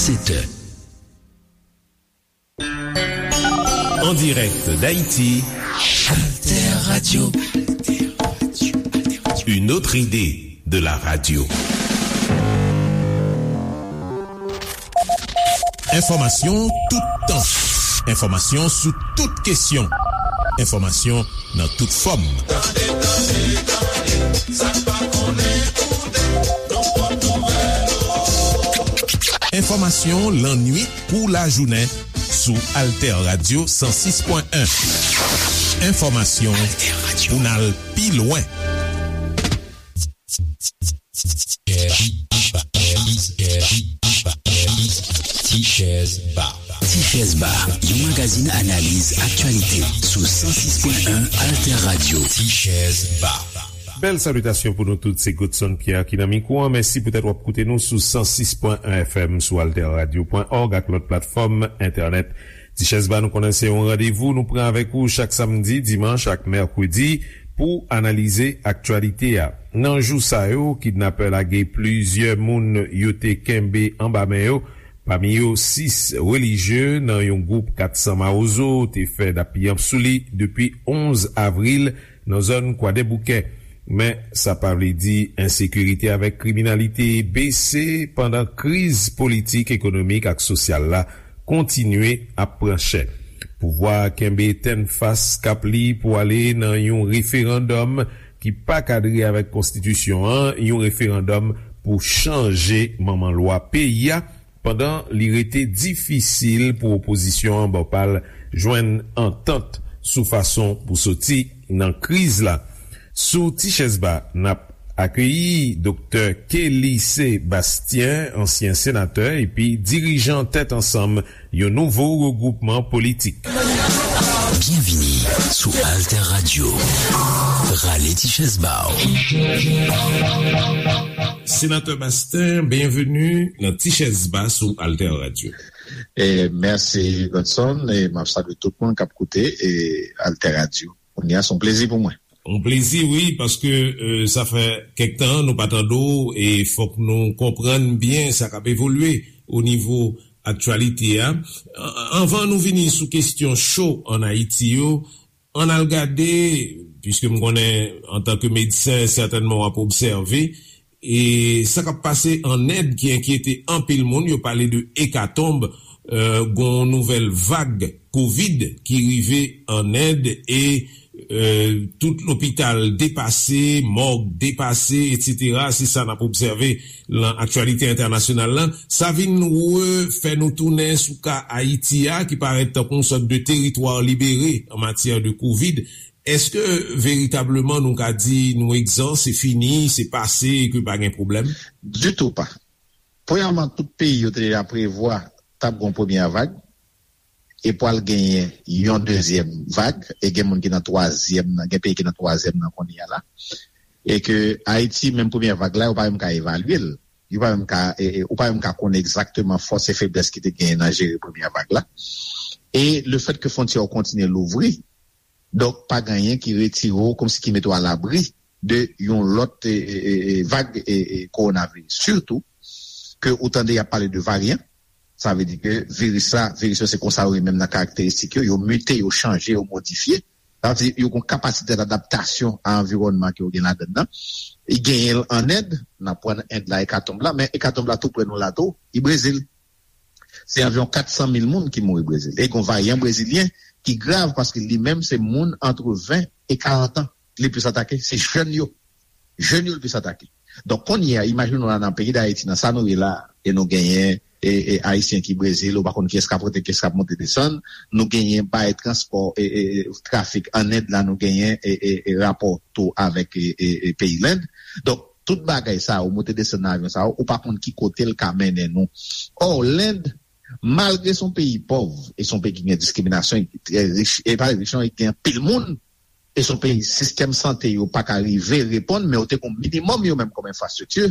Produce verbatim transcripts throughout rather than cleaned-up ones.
sept heures. En direct d'Haïti, Alter Radio. Une autre idée de la radio. Enfòmasyon toutan. Enfòmasyon sou tout kesyon. Enfòmasyon nan tout fòm. Tande, tande, tande, sa n pa konnen koute, nou pot nouvèl. Enfòmasyon lannwit kou lajounen sou Alter Radio san sis pwen en. Enfòmasyon pou n al pi lwen. Tichèz Ba. Tichèz Ba, yon magazin analiz aktyalite sou san sis pwen en Alter Radio. Tichèz Ba. Bèl salitasyon pou nou tout, se Godson Pierre ki nan mikwo an. Mèsi poutèt w ap koute nou sou san sis pwen en F M sou alter radio pwen org ak lòt platfòm entènèt. Tichèz Ba, nou konnen se yon randevou nou pran avèk ou chak samdi, dimanch ak mèkredi pou analize aktyalite a. Nan jou sa yo, kidnapè lage plizyè moun yo te kenbe anba men yo, pami yo sis relijye nan yon gwoup kat san Mawozo te fè dappiyanp sou li depi onz avril nan zòn Kwadèboukè. Men, sa pa vle di ensekirite avèk kriminalite bese pandan kriz politik, ekonomik ak sosyal la kontinye ap pran chè. Pouvwa a kenbe tennfas kap li pou ale nan yon referandòm ki pa kadre avèk konstitisyon an, yon referandòm pou chanje manman lwa peyi a, pandan li rete difisil pou opozisyon an bò pa l jwenn antant sou fason pou soti nan kriz la. Sou Tichèz Ba, n ap akeyi Doktè Kelly Sébastien, ansyen senatè epi dirijan Tèt Ansanm, yon nouvo regwoupman politik. Byenvini sou Alter Radio. Rale ti chèz ba w. Senatè Bastien, byenveni nan Ti Chèz Ba sou Alter Radio. E, mèsi, Godson, e m ap salye tout moun k ap koute, e, Alter Radio. Kounye a, se yon plezi pou mwen. Yon plezi, wi, paske, e, sa fè kèk tan nou pa tande w, e fòk nou konprann byen sa k ap evolye o nivo aktyalite a. An-, anvan nou vini sou kesyon cho ann Ayiti yo, ann al gade, piske m konnen, antanke medsen, sètènman w ap obsève, e sa k ap pase ann End ki enkyete anpil moun. Yo pale de ekatonb, e, gon nouvèl vag kovid ki rive ann End, e, e, tout lopital depase, mòg depase, etsetera. Se sa n ap obsève lan aktyalite entènasyonal lan. Sa vin refè nou tounen sou ka Ayiti a, ki parèt tankou yon sòt de teritwa libere an matyè de kovid. Èske veritableman nou ka di nou egzan, se fini, se pase, e ke pa gen pwoblèm? Ditou pa. Premyèman, tout peyi yo te deja prevwa t ap gen yon premyè vag, e pral genyen yon dezyèm vag, e gen moun ki nan twazyèm nan, gen peyi ki nan twazyèm nan kounye a la. E ke Ayiti, menm premyè vag la, yo pa menm ka evalye l. Yo pa menm ka, e, e, ou pa menm ka konn egzakteman fòs e feblès ki te genyen nan jere premyè vag la. E lefèt ke fwontyè yo kontinye louvri, donk, pa gen anyen ki retire w, kòmsi ki mete w alabri de yon lòt, e, e, e, e, vag, e, e, kowonaviris. Sitou ke ou tande y ap pale de varyan, sa vle di ke viris la, viris yo se konsa yo ye menm nan karakteristik yo, yo mite, yo chanje, yo modifye. Sa vle di yo gen yon kapasite dadaptasyon a anviwònman ke yo gen ladann nan. Li genyen l ann End, n ap pran End la ekatonb la, men ekatonb la tou prè nou la tou, li Brezil. Se anviwon kat san mil moun ki mouri Brezil. E gen yon varyan brezilyen ki grav paske li menm se moun antre ven e karant an li plis atake. Se jèn yo. Jèn yo li plis atake. Donk, kounye a, imajine w la nan peyi Dayiti, nan sa nou ye la, e nou genyen, e, e, Ayisyen ki Brezil, ou pa konn kiyès k ap rantre, kiyès k ap monte desann, nou genyen bay transpò, e, e, e, trafik ann End la, nou genyen, e, e, e, rapò tou avèk, e, e, e, peyi Lend. Donk, tout bagay sa yo, moute desann nan avyon sa yo, ou pa konn ki kote l ka mennen nou. Ò, Lend, malgre se yon peyi pòv, e se yon peyi ki gen diskriminasyon, e ki trè rich, e pa rich non, e ki gen anpil moun, e se yon peyi sistèm sante yo pa ka rive reponn, men yo te gen minimòm yo menm kòm enfrastrikti,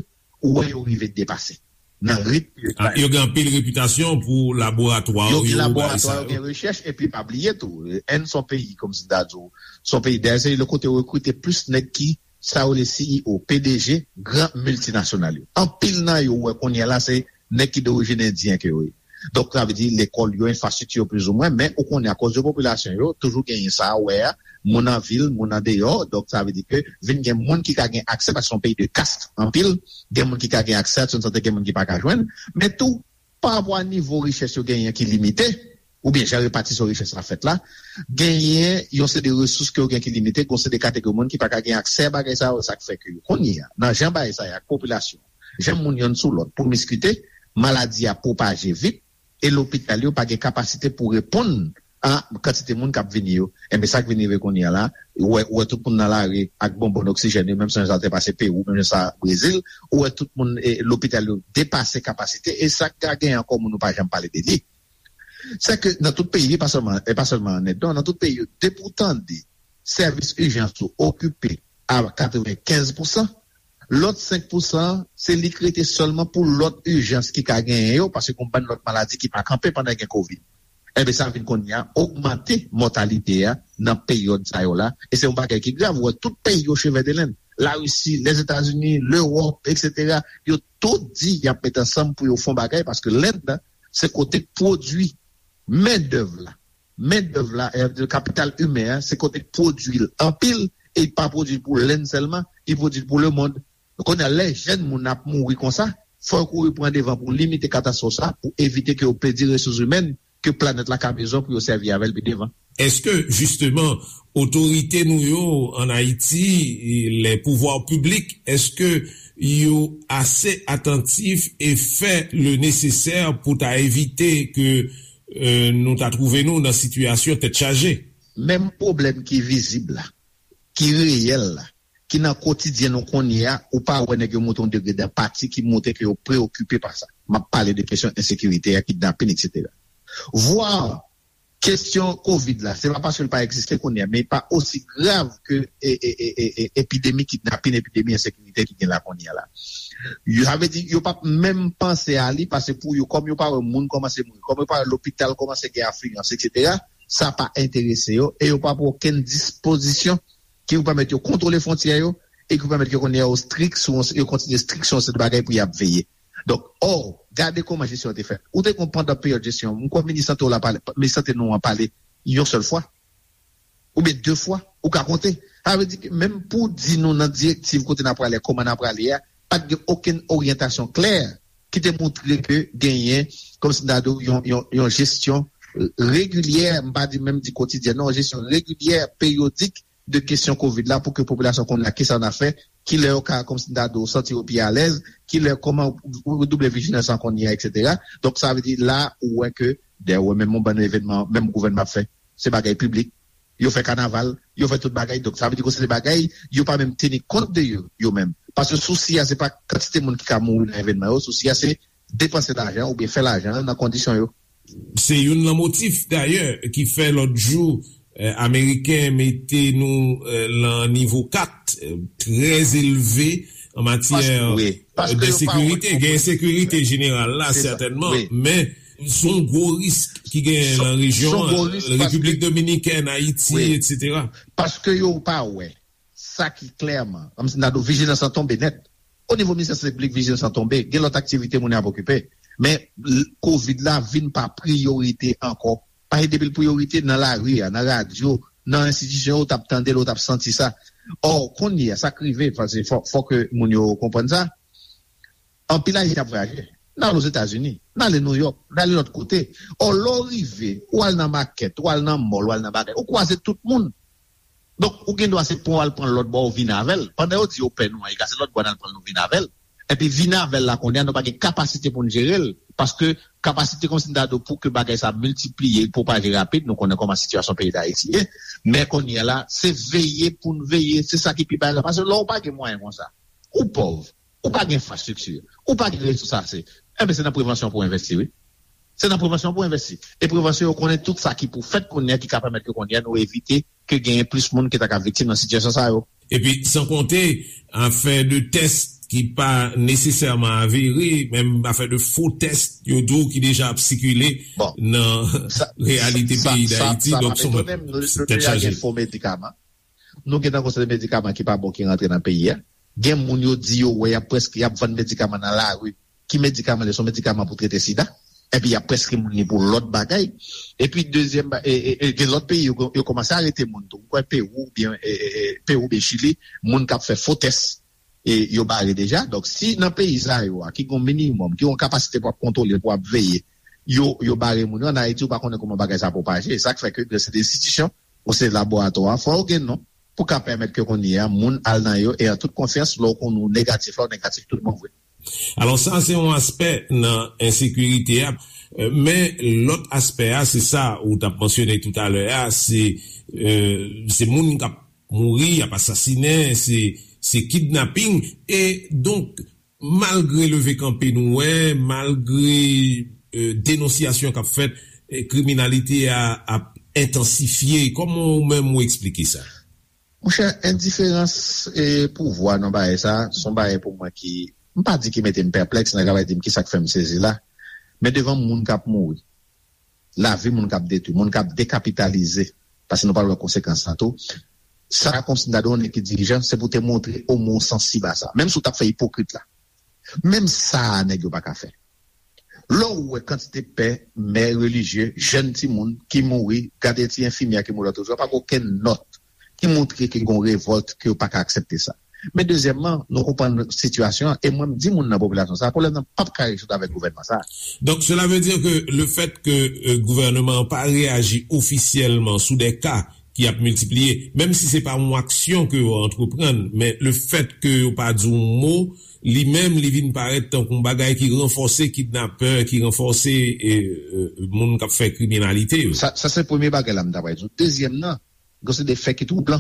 ou wè yo rive depase nan ritm yo. Ah, yo gen anpil repitasyon pou laboratwa yo, yo gen laboratwa, yo gen rechèch, epi pa bliye tou, End se yon peyi, kòmsi m ta di w, se yon peyi, dayè se le kote yo rekrite plis nèg ki sa yo rele C E O, P D G, gran miltinasyonal yo. Anpil nan yo, ou wè kounye a la, se nèg ki dorijin endyen ke yo ye. Donk, sa vle di lekòl yo, enfrastrikti yo plizoumwen, men ou konnen akoz de popilasyon yo, toujou genyen sa a wè a, moun an vil, moun an deyò, donk sa vle di ke vin gen moun ki ka gen aksè, paske se yon peyi de kast anpil, gen moun ki ka gen aksè a swen sante, gen moun ki pa ka jwenn, men tou, pa rapò a nivo richès yo genyen ki limite, oubyen jan repatisyon richès la fèt la, genyen yon seri de resous ke yo gen ki limite, gen yon seri de kategori moun ki pa ka gen aksè a bagay sa yo, sa k fè ke yo kounye a, nan jan bagay sa ye ak popilasyon, jan moun yonn sou lòt pwomiskite, maladi a pwopaje vit, e lopital yo pa gen kapasite pou reponn a kantite moun k ap vini yo. Enben, sa k vin rive kounye a la, ou wè, ou wè tout moun nan lari ak bonbòn oksijèn yo, menm jan sa te pase Pewou, menm jan sa Brezil, ou wè tout moun, e, lopital yo depase kapasite, e sa k ka gen ankò moun nou pa janm pale de li. Se ke nan tout peyi, e pa sèlman, e pa sèlman an End, non, nan tout peyi yo, depi w tande sèvis ijans ou okipe a katrevenkenz pousan, lòt senk pousan, se li k rete sèlman pou lòt ijans ki ka genyen yo, paske gen yon bann lòt maladi ki pa kanpe pandan gen kovid. Enben, sa vin kounye a ogmante mòtalite a nan peryòd sa yo la, e se yon bagay ki grav. Ou wè, tout peyi yo chevè de lenn, Larisi, Lèzetazini, Lewòp, etsetera, yo tout di y ap met ansanm pou yo fè yon bagay, paske Lend se kote k pwodui mendèv la. Mendèv la, e, kapital imen an, se kote k pwodui l anpil, e li pa pwodui l pou Lend sèlman, li pwodui l pou lemonn. Kounye a, lè jèn moun ap mouri konsa, fò yo kouri pran devan pou limite katastwòf sa, pou evite ke yo pèdi resous imèn ke planèt la ka bezwen pou yo sèvi avè l pi devan. Èske, jisteman, otorite nou yo ann Ayiti, les pouvoirs publics, èske yo ase atantif e fè le nesesè pou ta evite ke, e, nou ta twouve nou nan sitiyasyon tèt chaje? Menm pwoblèm ki vizib la, ki reyèl la, ki nan kotidyen nou kounye a, ou pa wè nèg yo montre yon degre d apati ki montre ke yo preokipe pa sa. M ap pale de kesyon ensekirite a, kidnapin, etsetera. Vwa kesyon kovid la, se pa paske l pa egziste kounye a, men li pa osi grav ke, e, e, e, e, e, epidemi kidnapin, epidemi ensekirite ki gen la kounye a la. Yo, sa vle di, yo p ap menm panse a li, paske pou yo, kòm yo pa wè moun kòmanse mouri, kòm yo pa wè lopital kòmanse gen afliyans, etsetera, sa pa enterese yo, e yo pa pran okenn dispozisyon ki pou pèmèt yo kontwole fwontyè yo, e ki pou pèmèt yo konnen yo strik sou, yo kontinye strik sou yon seri de bagay pou y ap veye. Donk, ò, gade kòman jesyon an te fèt. Ou te konn pandan peryòd jesyon, m kwè minis sante w la pale, minis sante nou an pale yon sèl fwa, oubyen de fwa, ou ka konte. Sa vle di ke menm pou di nou nan direktiv kote n ap prale, kòman n ap prale a, pa t gen okenn oryantasyon klè ki te montre ke genyen, kòmsi m ta di w, yon, yon, yon jesyon regilyè, m pa di menm di kotidyèn, non, yon jesyon regilyè, peryodik de kesyon kovid la pou ke popilasyon konnen kisa n ap fè, kilè yo ka, kòmsi m ta di w, santi yo pi alèz, kilè, kòman redouble vijilans lan kounye a, etsetera. Donk, sa vle di la, ou wè ke, dayè, ou wè menm yon bann evènman, menm gouvènman ap fè, se bagay piblik, yo fè kanaval, yo fè tout bagay. Donk, sa vle di ke se de bagay, yo pa menm teni kont de yo, yo menm. Paske sousi a, se pa kantite moun ki ka mouri nan evènman yo, sousi a, se depanse lajan oubyen fè lajan nan kondisyon yo. Se youn nan motif, dayè, ki fè lòt jou, eh, Ameriken mete nou, eh, lan nivo kat, eh, trè elve an matyè, eh, de sekirite. Gen ensekirite jeneral la, sètènman, men se yon gwo risk ki genyen lan rejyon an, Repiblik Dominikèn, Ayiti, etsetera. Paske yo pa wè sa ki klèman, kòmsi m ta di w, vijilans lan tonbe nèt. O nivo ministè sante piblik, vijilans lan tonbe, gen lòt aktivite moun yo ap okipe. Men, l-, kovid la vin pa priyorite ankò. Paske depi l priyorite, nan lari a, nan radyo, nan enstitisyon yo, ou t ap tande l, ou t ap santi sa. Ò, kounye a, sa k rive, paske fò, fò ke moun yo konprann sa. Anpil Ayisyen ap vwayaje. N ale Ozetazini, n ale Nouyòk, n ale lòt kote. Ò, lè w rive, ou al nan makèt, ou al nan mòl, ou al nan bagay, ou kwaze tout moun. Donk, ou gen dwa se pran w al pran l lòt bò, ou vin avè l. Pandan yo di yo pè nou an, e ka se lòt bò n al pran l, nou vin avè l. Epi vin avè l la, kounye a, nou pa gen kapasite pou n jere l. Paske kapasite, kòmsi m ta di w, pou ke bagay sa miltipliye, pwopaje rapid, nou konnen kòman sitiyasyon peyi Dayiti ye. Men kounye a la, se veye pou n veye, se sa ki pi bay la. Paske lè w pa gen mwayen konsa, ou pòv, ou pa gen enfrastrikti, ou pa gen resous ase, enben se nan prevansyon pou w envesti, wi. Se nan prevansyon pou w envesti. E prevansyon, yo konnen tout sa ki pou fèt kounye a, ki ka pèmèt ke kounye a nou evite ke genyen plis moun ki ta ka viktim nan sitiyasyon sa yo. Epi, san konte afè de tès ki pa nesesèman avere, menm afè de fo tès, yo di w ki deja ap sikile nan reyalite peyi Dayiti. Donk, se yon tèt chaje. Nou gen nan konsèy medikaman ki pa bon ki rantre nan peyi a. Gen moun yo di yo wè y ap prèske, y ap vann medikaman nan lari. ki medikaman li, se yon medikaman pou trete sida. Epi y ap preskri moun li pou lòt bagay. Epi dezyèm, ba- e, e, e, gen lòt peyi, yo, yo kòmanse arete moun tou. M kwè Pewou oubyen e, e, e, Pewou oubyen Chili, moun k ap fè fo tès, e, yo bare deja. Donk, si nan peyi sa yo a, ki gen yon minimòm, ki gen yon kapasite pou ap kontwole, pou ap veye, yo, yo bare moun yo, an Ayiti, ou pa konnen kòman bagay sa pwopaje. E sa k fè ke se de enstitisyon, ou se laboratwa, fò yo gen non, pou ka pèmèt ke kounye a, moun al nan yo, e an tout konfyans, lè w konnen w negatif, lè w negatif, tout bon vre. Alò, sa se yon aspè nan ensekirite a. Euh, men lòt aspè a, se sa ou t ap mansyone toutalè a, se euh, se moun k ap mouri, y ap asasinen, se se kidnaping. E donk, malgre leve kanpe nou wè, malgre euh, denonsyasyon k ap fèt, eh, kriminalite a ap entansifye. Kòman ou menm ou eksplike sa? Monchè, endiferans e pouvwa nan bagay sa, se yon bagay pou mwen ki, m pa di ki mete m pèplèks, nèg la va di m kisa k fè m sezi la, men devan moun k ap mouri, lavi moun k ap detwi, moun k ap dekapitalize, paske nou pral wè konsekans sa tou, sa kòmsi m ta di yon nèg ki dirijan, se pou te montre omwen w sansib a sa. Menm si w t ap fè ipokrit la, menm sa a nèg yo pa ka fè. Lè w wè kantite pè, mè relijye, jèn timoun ki mouri, gade ti enfimyè ki mouri lòt jou, pa gen okenn nòt ki montre ke gen yon revòlt, ke yo pa ka aksepte sa. Men dezyèmman, nou konprann sitiyasyon an, e mwen m di moun nan popilasyon sa a, pwoblèm nan p ap ka rezoud avèk gouvènman sa a. Donc, cela veut dire que le fait que euh, gouvènman an pa reyaji ofisyèlman sou de ka ki ap miltipliye, menm si se pa yon aksyon ke yo antreprann, men le fèt ke yo pa di yon mo, li menm, li vin parèt tankou yon bagay ki ranfòse kidnapè, ki ranfòse eh, eh, moun k ap fè kriminalite yo. Sa, sa se premye bagay la m ta pral di w. Dezyèm nan, gen se de fè ki twouban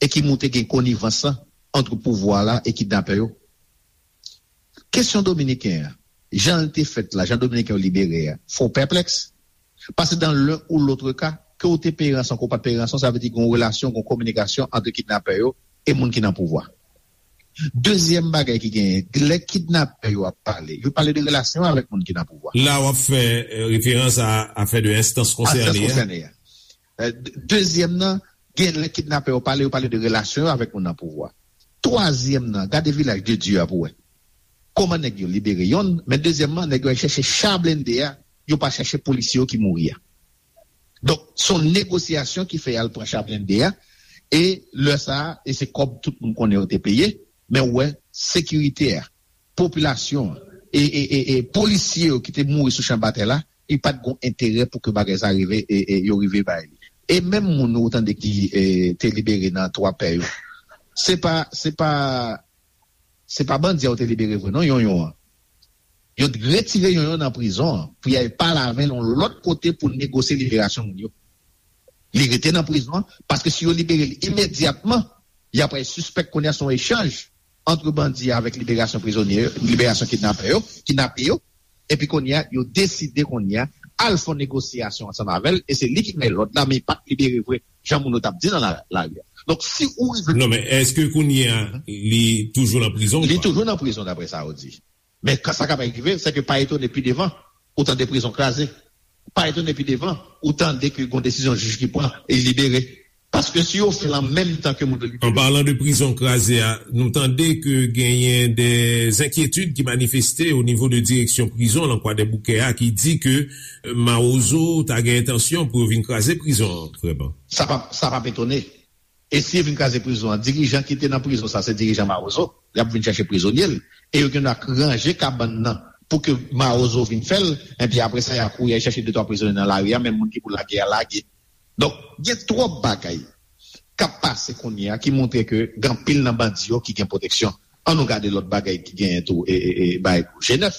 e ki montre gen konivans lan ant pouvwa la e kidnapè yo. Kesyon dominiken an, jan l te fèt la, jan dominiken yo libere a, fè w pèplèks. Paske dans l'un ou l'autre cas, ke w te peye ranson, ke w pa t peye ranson, sa vle di gen yon relasyon, gen yon kominikasyon ant kidnapè yo e moun ki nan pouvwa. Dezyèm bagay ki genyen, lè kidnapè yo ap pale, yo pale de relasyon avèk moun ki nan pouvwa. La w ap fè eh, referans a afè de enstans konsène a. Eh, de- Dezyèm nan, gen lè kidnapè yo pale, yo pale de relasyon yo avèk moun nan pouvwa. Twazyèm nan, gade Vilaj de Dye a pou wè. Kòman nèg yo libere yonn, men dezyèmman, nèg yo al chèche cha blende a, yo pa chèche polisye yo ki mouri a. Donk, se yon negosyasyon ki fè y al pran cha blende a, e lè sa a, e se kòb tout moun konnen yo te peye, men w wè, sekirite a, popilasyon an, e, e, e, e polisye yo ki te mouri sou chan batay la, li pa t gen enterè pou ke bagay sa rive, e, e yo rive bay li. E menm moun ou tande ki e, te libere nan twa pè yo, se pa, se pa, se pa bandi a yo te libere vre non, Yonyon an. Yo t retire Yonyon nan prizon an pou y al pale avè l yon lòt kote pou negosye liberasyon moun yo. Li rete nan prizon an, paske si yo libere l imedyatman, y ap al sispèk kounye a se yon echanj ant bandi a avèk liberasyon prizonye yo, liberasyon kidnapè yo, kidnape yo, epi kounye a, yo deside kounye a al fè yon negosyasyon ansanm avè l, e se li ki bay lòd la, men li pa t libere vre, jan moun yo t ap di nan la- lari a. Donk, si ou rive Non, men èske kounye a, li toujou nan prizon ou Li pa? toujou nan prizon, daprè sa yo di. Men kan sa kapab rive, se ke pa etone pi devan, ou tande prizon kraze. Pa etone pi devan, ou tande ke gon desizyon jij ki pran, e li libere. Paske si yo fè l an menm tan ke moun yo libere. An palan de prizon kraze a, nou tande ke genyen de enkyetid ki manifeste o nivo de direksyon prizon lan Kwadèboukè a ki di ke eh, Mawozo ta gen entansyon pou yo vin kraze prizon an, vrèman. Sa p ap, sa p ap etone. E si yo vin kraze prizon an, dirijan ki te nan prizon sa, se dirijan Mawozo, y ap vin chache prizonye l. E yo gen dwa ranje kabann nan pou ke Mawozo vin fè l, enpi apre sa, y a kouri al chache de twa prizonye nan lari a, menm moun ki pou lage a lage. Donk, gen twòp bagay k ap pase kounye a ki montre ke gen anpil nan bandi yo ki gen pwoteksyon. Ann nou gade lòt bagay ki genyen tou, e, e, e, bay G nèf.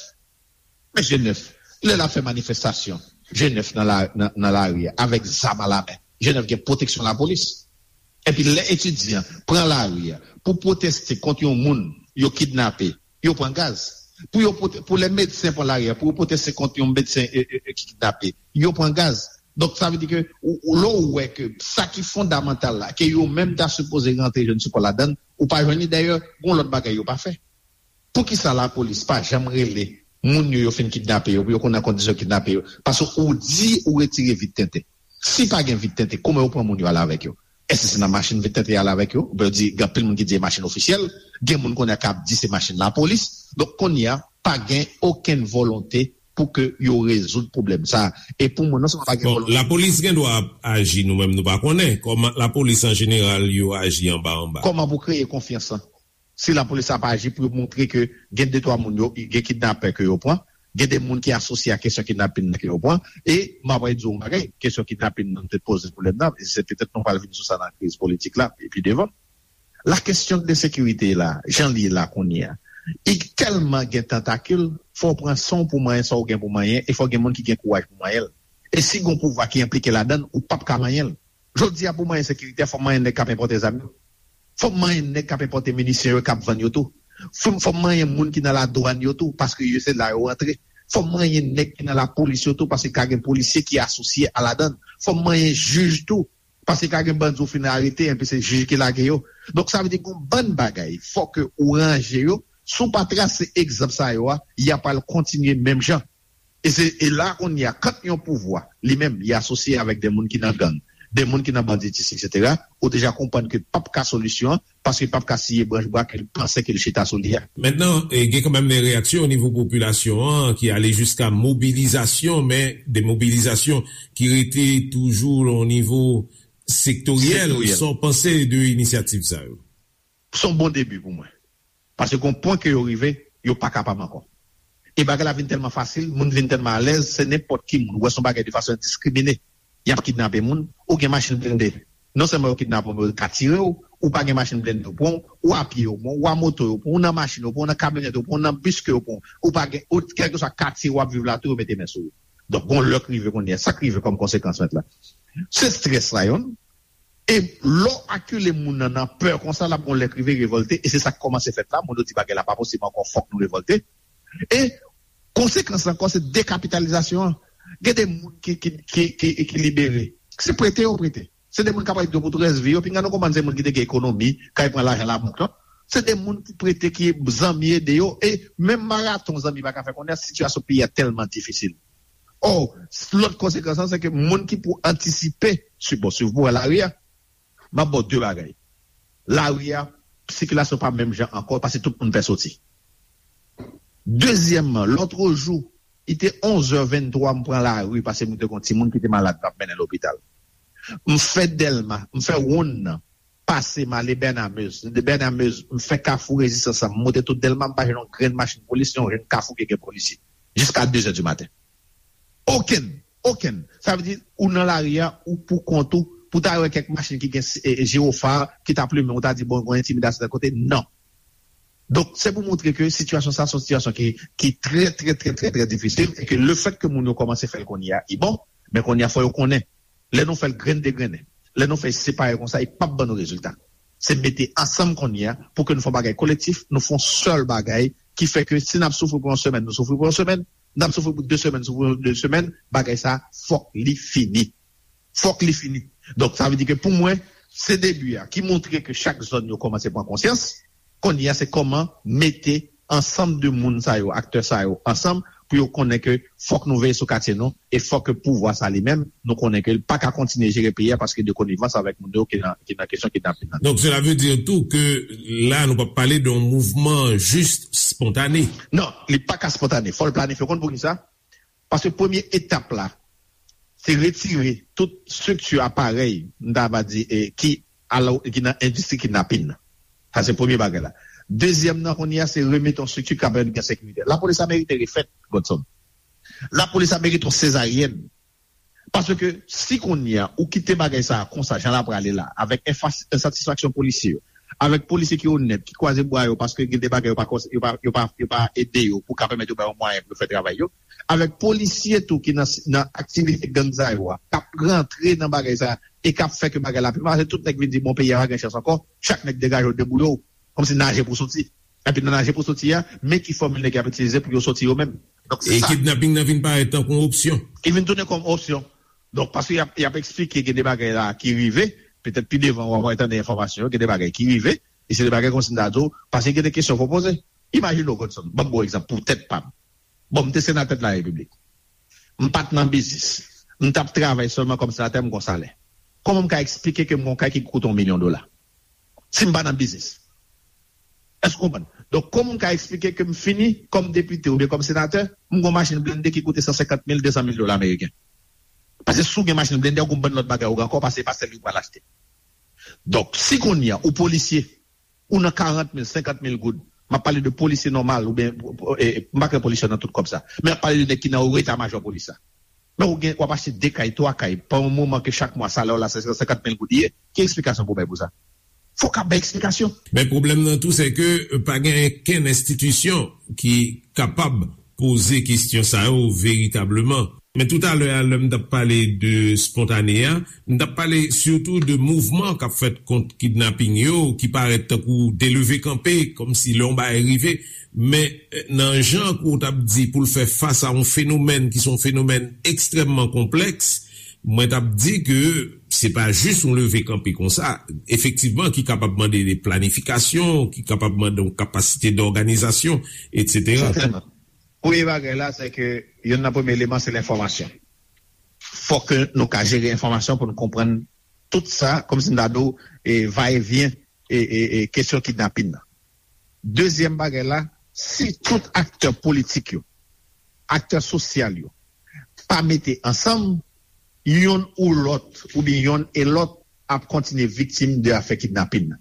Men G nèf, lè l ap fè manifestasyon, G nèf nan la, nan, nan lari a, avèk zam alamen, G nèf gen pwoteksyon lapolis. Epi lè etidyan pran lari a pou pwoteste kont yon moun yo kidnape, yo pran gaz. Pou yo pwote- pou lè medsen pran lari a pou yo pwoteste kont yon medsen e, e, e, ki kidnape, yo pran gaz. Donk sa vle di ke ou, ou, lè w wè ke sa ki fondamantal la, ke yo menm ta sipoze rantre jwenn sipò ladann, ou pa jwenn li. Dayè, gon lòt bagay yo pa fè. Poukisa lapolis pa janm rele moun yo yo fin kidnape yo, pou yo konn nan kondisyon yo kidnape yo? Paske ou di ou retire vit tenten. Si pa gen vit tenten, kòman yo pran moun yo ale avèk yo? Èske se nan machin vit tenten y ale avèk yo? Oubyen yo di, gen anpil moun ki di se machin ofisyèl, gen moun kounye a k ap di se machin lapolis. Donk kounye a, pa gen okenn volonte pou ke yo rezoud pwoblèm sa a. E pou mwen, non sèlman pa gen Bon, volonte. Lapolis gen dwa ap aji, nou menm nou pa konnen. Kòman lapolis an jeneral yo aji anba anba? Kòman pou kreye konfyans lan? Si lapolis ap aji pou yo montre ke gen de twa moun yo, gen kidnapè ke yo pran, gen de moun ki asosye a kesyon kidnapin nan ke yo pran, e m ap di w yon bagay, kesyon kidnapin nan te poze pwoblèm nan, e se petèt nou pral vin sou sa nan kriz politik la, e pi devan. La kesyon de sekirite la, jan li ye la kounye a, li tèlman gen tantakil, fò w pran san w pou manyen sa w gen pou manyen, e fò gen moun ki gen kouraj pou manyen l. E si gon pouvwa ki enplike ladan l, ou p ap ka manyen l. Jodi a, pou manyen sekirite a, fò manyen nèg k ap enpòte zam yo. Fò manyen nèg k ap enpòte minisyon yo, k ap vann yo tou. Fò, fò manyen moun ki nan ladwàn yo tou, paske yo se la yo rantre. Fò manyen nèg ki nan lapolis yo tou, paske ka gen polisye ki asosye a ladan l. Fò manyen jij tou, paske ka gen bandi ou fin arete, enpi se jij ki lage yo. Donk, sa vle di gon bann bagay, fò ke ou ranje yo. Si w pa trase egzanp sa yo a, y ap al kontinye menm jan. E se, e la kounye a, kant yon pouvwa, li menm, li asosye avèk de moun ki nan gang, de moun ki nan banditis, etsetera, ou deja konprann ke p ap ka solisyon an, paske p ap ka siye branch bwa ke l panse ke l chita sou li a. Mentnan, e, gen kanmenm de reyaksyon o nivo popilasyon an ki ale jiska mobilizasyon, men de mobilizasyon ki rete toujou o nivo sektoryèl. Sektoryèl. Sa w panse de inisyativ sa yo? Se yon bon debi pou mwen. Paske gon pwen ke yo rive, yo pa kapab ankò. E bagay la vin tèlman fasil, moun vin tèlman alèz, se nenpòt ki moun. Ou wè se yon bagay de fason endiskrimine. Y ap kidnape moun, ou gen machin blende. Non sèlman yo kidnape w, men yo ka tire w, ou pa gen machin blende yo pran w, ou a pye yo pran w, ou a moto yo pran w, ou nan machin yo pran w, ou nan kamyonèt yo pran w, ou nan bis ke yo pran w, ou pa gen, ou, kèlkeswa katye w ap viv la tou, yo mete men sou ou. Donk, gon lè k rive kounye a, sa k rive kòm konsekans mentnan? Se estrès la, yonn. E lè w akile moun nan nan pè konsa, l ap gon lè k rive revòlte, e se sa k kòmanse fèt la. Moun yo di bagay la pa posib ankò, fòk nou revòlte. E konsekans ankò, se dekapitalizasyon an. Gen de moun ki, ki, ki, ki, ki libere. Se prete yo prete. Se de moun k ap ede yo pou tout rès vi yo. Pinga nou konprann se moun ki te gen ekonomi, k al pran lajan labank lan. Se de moun ki prete, ki zanmi ede yo. E menm maraton zanmi pa ka fè kounye a, sitiyasyon peyi a tèlman difisil. Ò, lòt konsekans lan, se ke moun ki pou antisipe, si, bon, si w pou wè lari a, m ap ba w de bagay. Lari a, sikilasyon pa menm jan ankò, paske tout moun pè soti. Dezyèmman, lòtrejou, li te onz è venntwa, m pran lari, paske m te gon timoun ki te malad, m ap mennen lopital. M fè Dèlma, m fè wonn nan, pase m ale Bènamez. De Bènamez, m fè Kafou Rezistans lan, m monte tout Dèlma, m pa jwenn yon grenn machin polis, yon grenn kafou ki gen polisye. Jiska de zè di maten. Okenn, okenn. Sa vle di, ou nan lari a, ou pou kont ou, pou ta wè kèk machin ki gen, e, e, jiwofa, ki ta plimen, ou ta di, bon, gon entimidasyon tèl kote. Non. Donk, se pou montre ke sitiyasyon sa, se yon sitiyasyon ki, ki trè, trè, trè, trè, trè difisil, e ke lefèt ke moun yo kòmanse fè l kounye a, li bon, men kounye a, fò yo konnen. Lè nou fè l grenn degrennen, lè nou fè l separe konsa, li p ap ban nou rezilta. Se mete ansanm kounye a pou ke nou fè yon bagay kolektif, nou fè yon sèl bagay ki fè ke si n ap soufri pou yon semèn, nou soufri pou yon semèn, n ap soufri pou de semèn, soufri pou de semèn, bagay sa a, fòk li fini. Fòk li fini. Donk, sa vle di ke pou mwen, se debi a ki montre ke chak zòn yo kòmanse pran konsyans. Kounye a, se kòman mete ansanm de moun sa yo, aktè sa yo ansanm, pou yo konnen ke fòk nou veye sou katye nou, e fòk ke pouvwa sa li menm, nou konnen ke l pa ka kontinye jere peyi a paske de konivans avèk moun yo ki nan, ki nan kesyon kidnapin nan. Donc, cela veut dire tout que là, nou p ap pale de yon mouvman jis espontane. Non, li pa ka espontane. Fò l planifye. Ou konn poukisa? Paske premye etap la, se retire tout estrikti aparèy, m ta va di, e, ki, alò, ki nan endistri kidnapin nan. Sa se premye bagay la. Dezyèm nan, kounye a, se remete yon estrikti k ap pèmèt gen sekirite. Lapolis la merite refèt, Godson. Lapolis la merite yon sezaryèn. Paske si kounye a, ou kite bagay sa a konsa, jan l ap prale la, avèk enfas-, ensatisfaksyon polisye yo, avèk polisye ki onèt, ki kwaze bra yo, paske gen de bagay yo pa kons-, yo pa, yo pa, yo pa ede yo pou ka pèmèt yo bay yo mwayen pou yo fè travay yo, avèk polisye tou ki nan, nan aktivite gang sa yo a, k ap rantre nan bagay sa a, e k ap fè ke bagay la pi mal, se tout nèg vin di, bon, peyi a pa gen chans ankò, chak nèg degaje w, debouye w, kòmsi naje pou soti. Epi nan naje pou soti a, men ki fòmil nèg y ap itilize pou yo soti yo menm. Donk, se E sa. Kidnaping nan vin parèt tankou yon opsyon. Li vin tounen kòm opsyon. Donk, paske y ap, y ap eksplike gen de bagay la ki rive, petèt pi devan w ap tande enfòmasyon yo, gen de bagay ki rive, e se de bagay kòmsi m ta di w, paske gen de kesyon pou poze. Imajine w, Godson, ban m bon egzanp pou tèt pa m. Bon, m te senatè de la Repiblik. M pa t nan biznis. M t ap travay sèlman kòm senatè, m gon salè. Kòman m ka eksplike ke m gon kay ki koute yon milyon dola? Si m pa nan biznis. Èske w konprann? Donk, kòman m ka eksplike ke m fini kòm depite oubyen kòm senatè, m gon machin blende ki koute san senkant mil, de san mil dola ameriken? Paske si w gen machin blende, ou gon bann lòt bagay ou gen ankò, paske se pa sèl li ou pral achte. Donk, si kounye a, ou polisye, ou nan karant mil, senkant mil goud, m ap pale de polisye nòmal, oubyen, e, m pa kwè polisye nan tout kòb sa, men m ap pale de nèg ki nan eta majò polis la. Men ou gen, w ap achte de kay, twa kay, pa yon moman ke chak mwa salè w la se senkant mil goud li ye, ki eksplikasyon pou w bay pou sa? Fòk ap bay eksplikasyon. Men pwoblèm nan tou, se ke pa gen kenn enstitisyon ki kapab poze kesyon sa yo veritableman. Men toutalè a, lè m t ap pale de spontane a, m t ap pale sitou de mouvman k ap fèt kont kidnaping yo, ki parèt tankou de leve kanpe, kòmsi lè yon bagay rive. Men, eh, nan jan ke w t ap di pou l fè fas a yon fenomèn ki se yon fenomèn ekstrèmman konplèks, mwen t ap di ke se pa jis yon leve kanpe konsa, efektivman, ki kapab mande de planifikasyon, ki kapab mande yon kapasite dòganizasyon, etsetera. Sètènman. Premye bagay la, se ke youn nan premye eleman, se lenfòmasyon. Fòk ke nou ka jere enfòmasyon pou nou konprann tout sa, kòmsi m ta di w, e, va e vyen, e, e, e, kesyon kidnapin nan. Dezyèm bagay la, si tout aktè politik yo, aktè sosyal yo, pa mete ansanm, yonn ou lòt, oubyen yonn e lòt, ap kontinye viktim de afè kidnapin nan.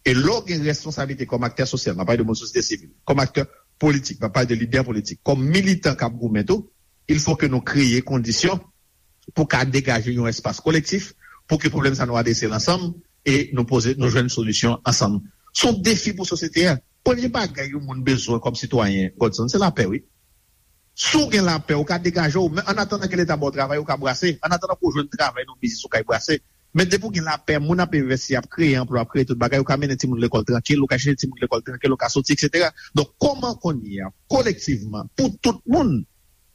E lè w gen responsablite kòm aktè sosyal, m ap pale de moun sosyete sivil, kòm aktè politik, m ap pale de lidè politik, kòm militan k ap goumen tou, il faut que nou kreye kondisyon pou ka degaje yon espas kolektif, pou ke pwoblèm sa nou adrese l ansanm e nou poze, nou jwenn solisyon ansanm. Se yon defi pou sosyete a. Premye bagay yon moun bezwen kòm sitwayen, Godson, se lapè, wi. Si w gen lapè, ou ka degaje w, men annatandan ke Leta ba w travay, ou ka brase. Annatandan ke w jwenn travay nan yon biznis, ou ka brase. Men depi w gen lapè, moun ap envesti, ap kreye anplwa, ap kreye tout bagay, ou ka mennen timoun lekòl trankil, ou ka chèche timoun lekòl trankil, ou ka soti, etsetera. Donk, kòman kounye a, kolektivman, pou tout moun,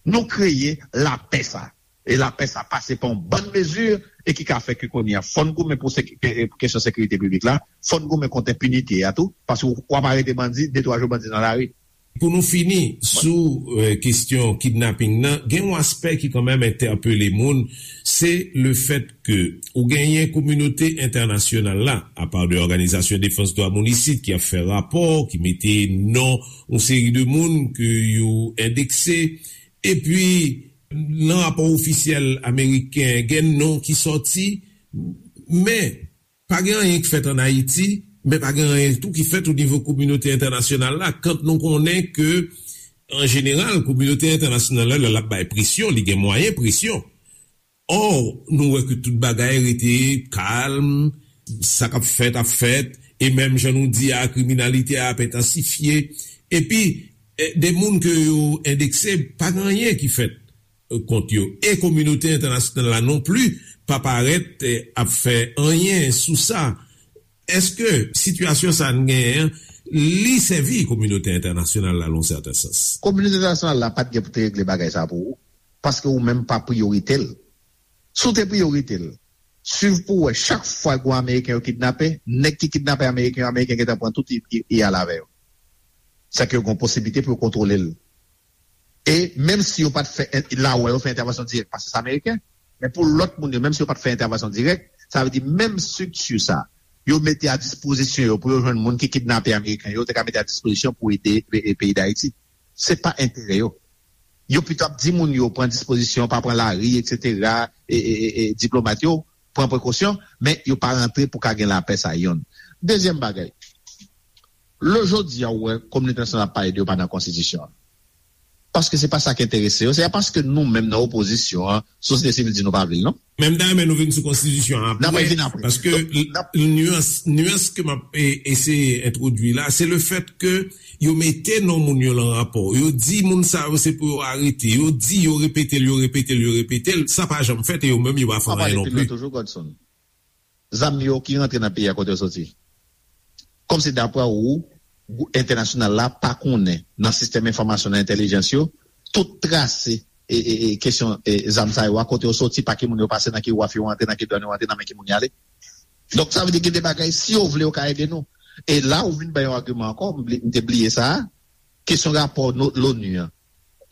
nou kreye lapè sa? E lapè sa pase pa yon bann mezi e ki ka fè ke kounye a, fò n goumen pou seki-, ke-, ke-, kesyon sekirite piblik la, fò n goumen kont enpinite a tou, paske w, w ap arete bandi, de twa jou bandi nan lari. Pou nou fini sou, eh, kesyon kidnaping nan, gen yon aspè ki kanmenm entèpele moun, se le fèt ke ou genyen kominote entènasyonal la, apa de òganizasyon defans dwa moun isit ki ap fè rapò, ki mete non yon seri de moun ke yo endekse, epi nan rapò ofisyèl ameriken, gen non ki sòti, men pa gen anyen ki fèt ann Ayiti, men pa gen anyen tou ki fèt o nivo kominote entènasyonal la, kan nou konnen ke, an jeneral, kominote entènasyonal la, lè l ap bay presyon, li gen mwayen presyon. Ò, nou wè ke tout bagay rete kalm, sa k ap fèt ap fèt, e menm jan nou di a, kriminalite a ap entansifye. Epi, eh, de moun ke yo endekse, pa gen anyen ki fèt, eh, kont yo. E kominote entènasyonal la non pli pa parèt, eh, ap fè anyen sou sa. Èske sitiyasyon sa n genyen an, li sèvi kominote entènasyonal la nan yon sèten sans? Kominote entènasyonal la pa t gen pou te regle bagay sa pou ou, paske ou menm pa priyorite l. Si w te priyorite l, swiv pou w wè, chak fwa gwo Ameriken yo kidnape, nèg ki kidnape Ameriken yo, Ameriken gentan pran tout, y, y, y al avè yo. Sa ke yo gen posiblite pou yo kontwole l. E menm si yo pa t fè en-, la wè yo fè entèvansyon dirèk, paske se Ameriken, men pou lòt moun yo, menm si yo pa t fè entèvansyon dirèk, sa vle di menm estrikti sa, yo mete a dispozisyon yo pou yo jwenn moun ki kidnape Ameriken yo, te ka mete a dispozisyon pou ede, e, e, peyi Dayiti. Se pa enterè yo. Yo pito ap di moun yo pran dispozisyon, pa pran lari, etsetera, e, e, e, e diplomat yo pran prekosyon, men yo pa rantre pou ka gen lapè sa yonn. Dezyèm bagay, lè jodi a ou wè kominote entènasyonal ap pale de yo pa nan konstitisyon an. Paske se pa sa ki enterese yo, se pa paske nou menm nan opozisyon an, sosyete sivil di nou pa vle l non. Men m ta renmen nou vin sou konstitisyon an apre, paske nyans, nyans ke m ap, e, eseye entwodui la, se le fèt ke yo mete non moun yo lan rapò. Yo di moun sa yo se pou yo arete. Yo di, yo repete l, yo repete l, yo repete l. Sa pa janm fèt e yo menm yo pa fè anyen non pli. Toujou, Godson. Zam yo ki rantre nan peyi a kote yo soti? Kòmsi dapre ou, gwoup entènasyonal la pa konnen nan sistèm enfòmasyon, nan entèlijans yo, tout trase e, e, e kesyon, e, zam sa yo a, kote yo soti, pa ki moun yo pase, nan ki waf yo antre, nan ki dwàn yo antre, nan men ki moun y ale. Donk, sa vle di gen de bagay, si yo vle, yo ka ede nou. E la, ou vin bay yon agiman ankò, m bli-, m te bliye sa a, kesyon rapò no-, l'ONU an,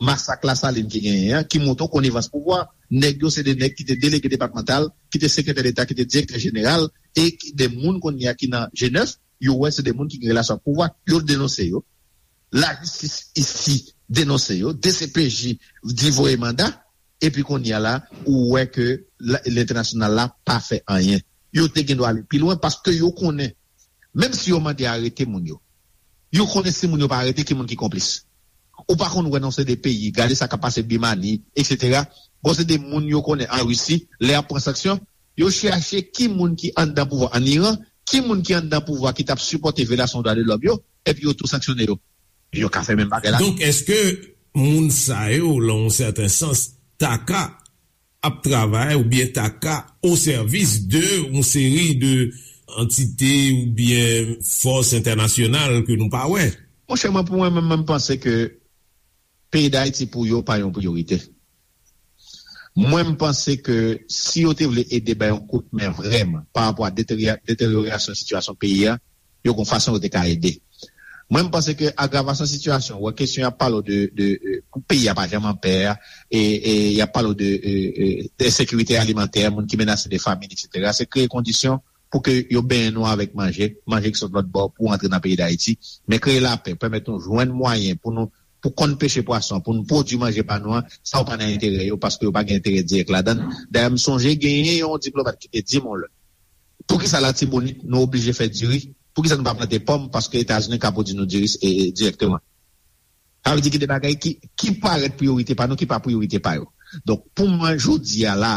masak Lasalin ki genyen an, ki montre w konivans pouvwa. Nèg yo se de nèg ki te delege depatmantal, ki te sekretè deta, ki te direktè jeneral, e ki de moun kounye a ki nan G nèf, yo wè se de moun ki gen relasyon ak pouvwa, yo denonse yo. Lajistis isi denonse yo, D C P J di voye manda, epi kounye a la, ou wè ke la- lentènasyonal la pa fè anyen. Yo te gen dwa ale pi lwen paske yo konnen, menm si yo mande arete moun yo, yo konnen si moun yo pa arete, ki moun ki konplis. Ou pa konn wè nan se de peyi, gade sa k ap pase Bimani, etsetera. Bon, se de moun yo konnen an Risi, lè y ap pran sanksyon, yo chèche ki moun ki anndan pouvwa an Iran, ki moun ki anndan pouvwa ki t ap sipòte vyolasyon dwa de lòm yo, epi yo tou sanksyone yo. Yo ka fè menm bagay la. Donk, èske moun sa yo, nan yon sèten sans, ta ka ap travay oubyen ta ka o sèvis de yon seri de antite oubyen fòs entènasyonal ke nou pa wè? Monchè, mwen, pou mwen menm, mwen panse ke peyi Dayiti pou yo pa yon priyorite. Mwen, m panse ke si yo te vle ede bay yon kout men vrèman pa rapò a deterya- deteryorasyon sitiyasyon peyi a, yo gon fason yo te ka ede. Mwen, m panse ke agravasyon sitiyasyon, wè kesyon y ap pale w de, de, de, peyi a pa janm an pè, e, e y ap pale w de, e, e, de ensekirite alimantè, moun ki menase de famin, etsetera. Se kreye kondisyon pou ke yo benyen nou avèk manje, manje ki sot lòt bò pou antre nan peyi Dayiti, men kreye lapè, pèmèt nou jwenn mwayen pou nou, pou konn peche pwason, pou nou pwodui manje pa nou an, sa yo pa nan enterè yo, paske yo pa gen enterè dirèk ladan l. Dayè, m sonje genyen yon diplomat ki te di m yon lè, poukisa Latibonit nou oblije fè diri? Poukisa nou pa plante pòm? Paske Etazini ka pwodui nou diri, e, e, dirèkteman. Sa vle di gen de bagay ki, ki parèt priyorite pa nou, ki pa priyorite pa yo. Donk, pou mwen, jodi a la,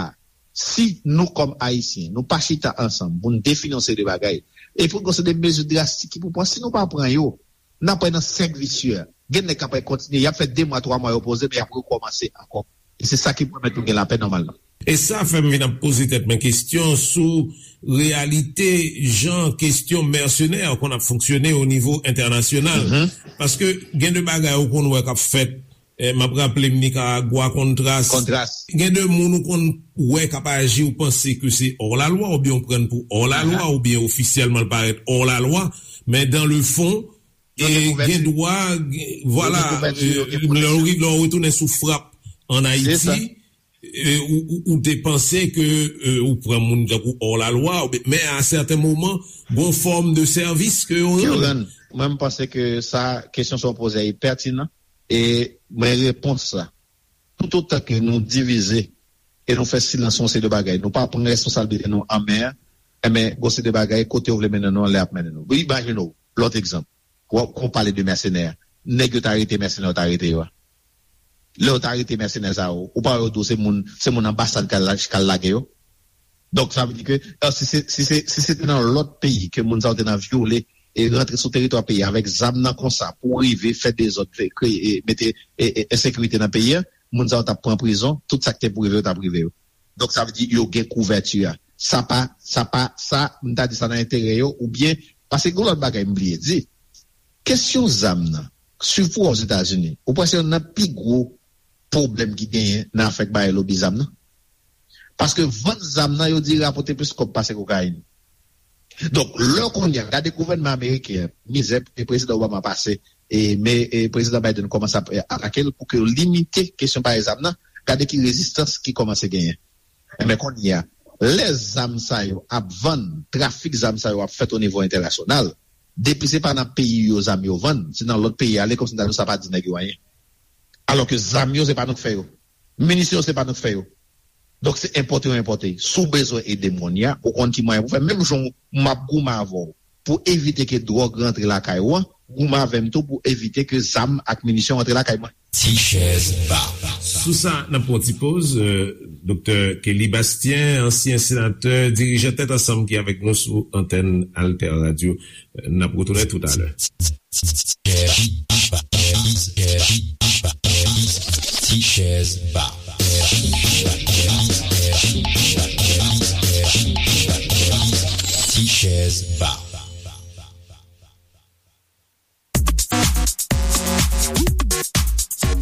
si nou, kòm Ayisyen, nou pa chita ansanm pou n defini yon seri de bagay, e pou gon seri de mezi drastik ki pou pran, si nou pa pran yo, n ap pran nan sèk visye. Gen nèg k ap kontinye, y ap fè de mwa, twa mwa yo poze, men y ap rekòmanse ankò. E se sa ki pèmèt nou gen lapè nòmalman. E sa fè m vin ap poze tèt mwen kesyon sou reyalite jan kesyon mèsenè konn ap fonksyone o nivo entènasyonal. Mhm. Paske gen de bagay ou konn wè k ap fèt, eh, m ap raple m Nikaragwa, Kontras. Kontras. Gen de moun ou konn wè k ap aji, ou panse ke se hors la loi, oubyen ou pran pou hors la loi, aha, oubyen ofisyèlman l parèt hors la loi, men dans le fond, yo gen kouvèti. Gen dwa, gen- vwala, yo gen kouvèti, yo gen, eh, lè w ri- lè w retounen sou frap ann Ayiti, eh, ou, ou, ou te panse ke, eh, ou pran moun tankou hors la loi, oubyen- men a sèten moman, gon fòm de sèvis ke yo rann. Mwen, m panse ke sa, kesyon sa w poze a, e pètinan, e mwen, repons la, toutotan ke nou divize e nou fè silans yon seri de bagay, nou pa pran responsablite nou an men, enben, gon seri de bagay, kote yo vle mennen nou an, lè y ap mennen nou. Imajine w, lòt egzanp, w ap- kon w pale de mèsenè, nèg yo ta rete mèsenè, yo ta rete yo a. Lè yo ta rete mèsenè sa yo, ou pa wè yo di w se moun, se moun anbasad k al la- k al lage yo? Donk, sa vle di ke, si se, si se, si se te nan lòt peyi ke moun sa yo te nan vyole e rantre sou teritwa peyi a avèk zam nan konsa pou rive fè dezòd, fè kreye, e mete, e, e, ensekirite nan peyi a, moun sa yo t ap pran prizon, tout sa k te pou rive yo t ap rive yo. Donk, sa vle di yo gen kouvèti a. Sa pa, sa pa, sa, m ta di sa nan enterè yo, oubyen, paske gen lòt bagay m bliye di. Kesyon zam nan, sipou Ozetazini, ou panse youn nan pi gwo pwoblèm ki genyen nan afè k bay lobi zam nan? Paske vann zam nan, yo di rapòte plis kòb pase kokayin. Donk, lè kounye a, gade gouvènman ameriken an, mizè e prezidan Obama pase, e, men, e, prezidan Biden kòmanse ap, e, atake l pou ke yo limite kesyon bay zam nan, gade ki rezistans ki kòmanse genyen. Enben, kounye a, lè zam sa yo ap vann, trafik zam sa yo ap fèt o nivo entènasyonal, depi se pa nan peyi yo zam yo vann, se nan lòt peyi ale, kòmsi n ta di sa pa di nèg yo anyen. Alò ke zam yo, se pa nou k fè yo. Minisyon yo, se pa nou k fè yo. Donk, se enpòte yo enpòte. Si w bezwen ede m kounye a, ou konn ki mwayen pou fè. Menm jan m ap goumen avè w pou evite ke dwòg rantre lakay ou an, goumen avè m tou pou evite ke zam ak minisyon rantre lakay mwen. Ti chèz ba. Sou sa, n ap pran ti poz. Euh, Doktè Kelly Bastien, ansyen senatè, dirijan Tèt Ansanm ki avèk nou sou antèn Alter Radio. Euh, n ap retounen toutalè. Ti chèz ba. Ti chèz ba.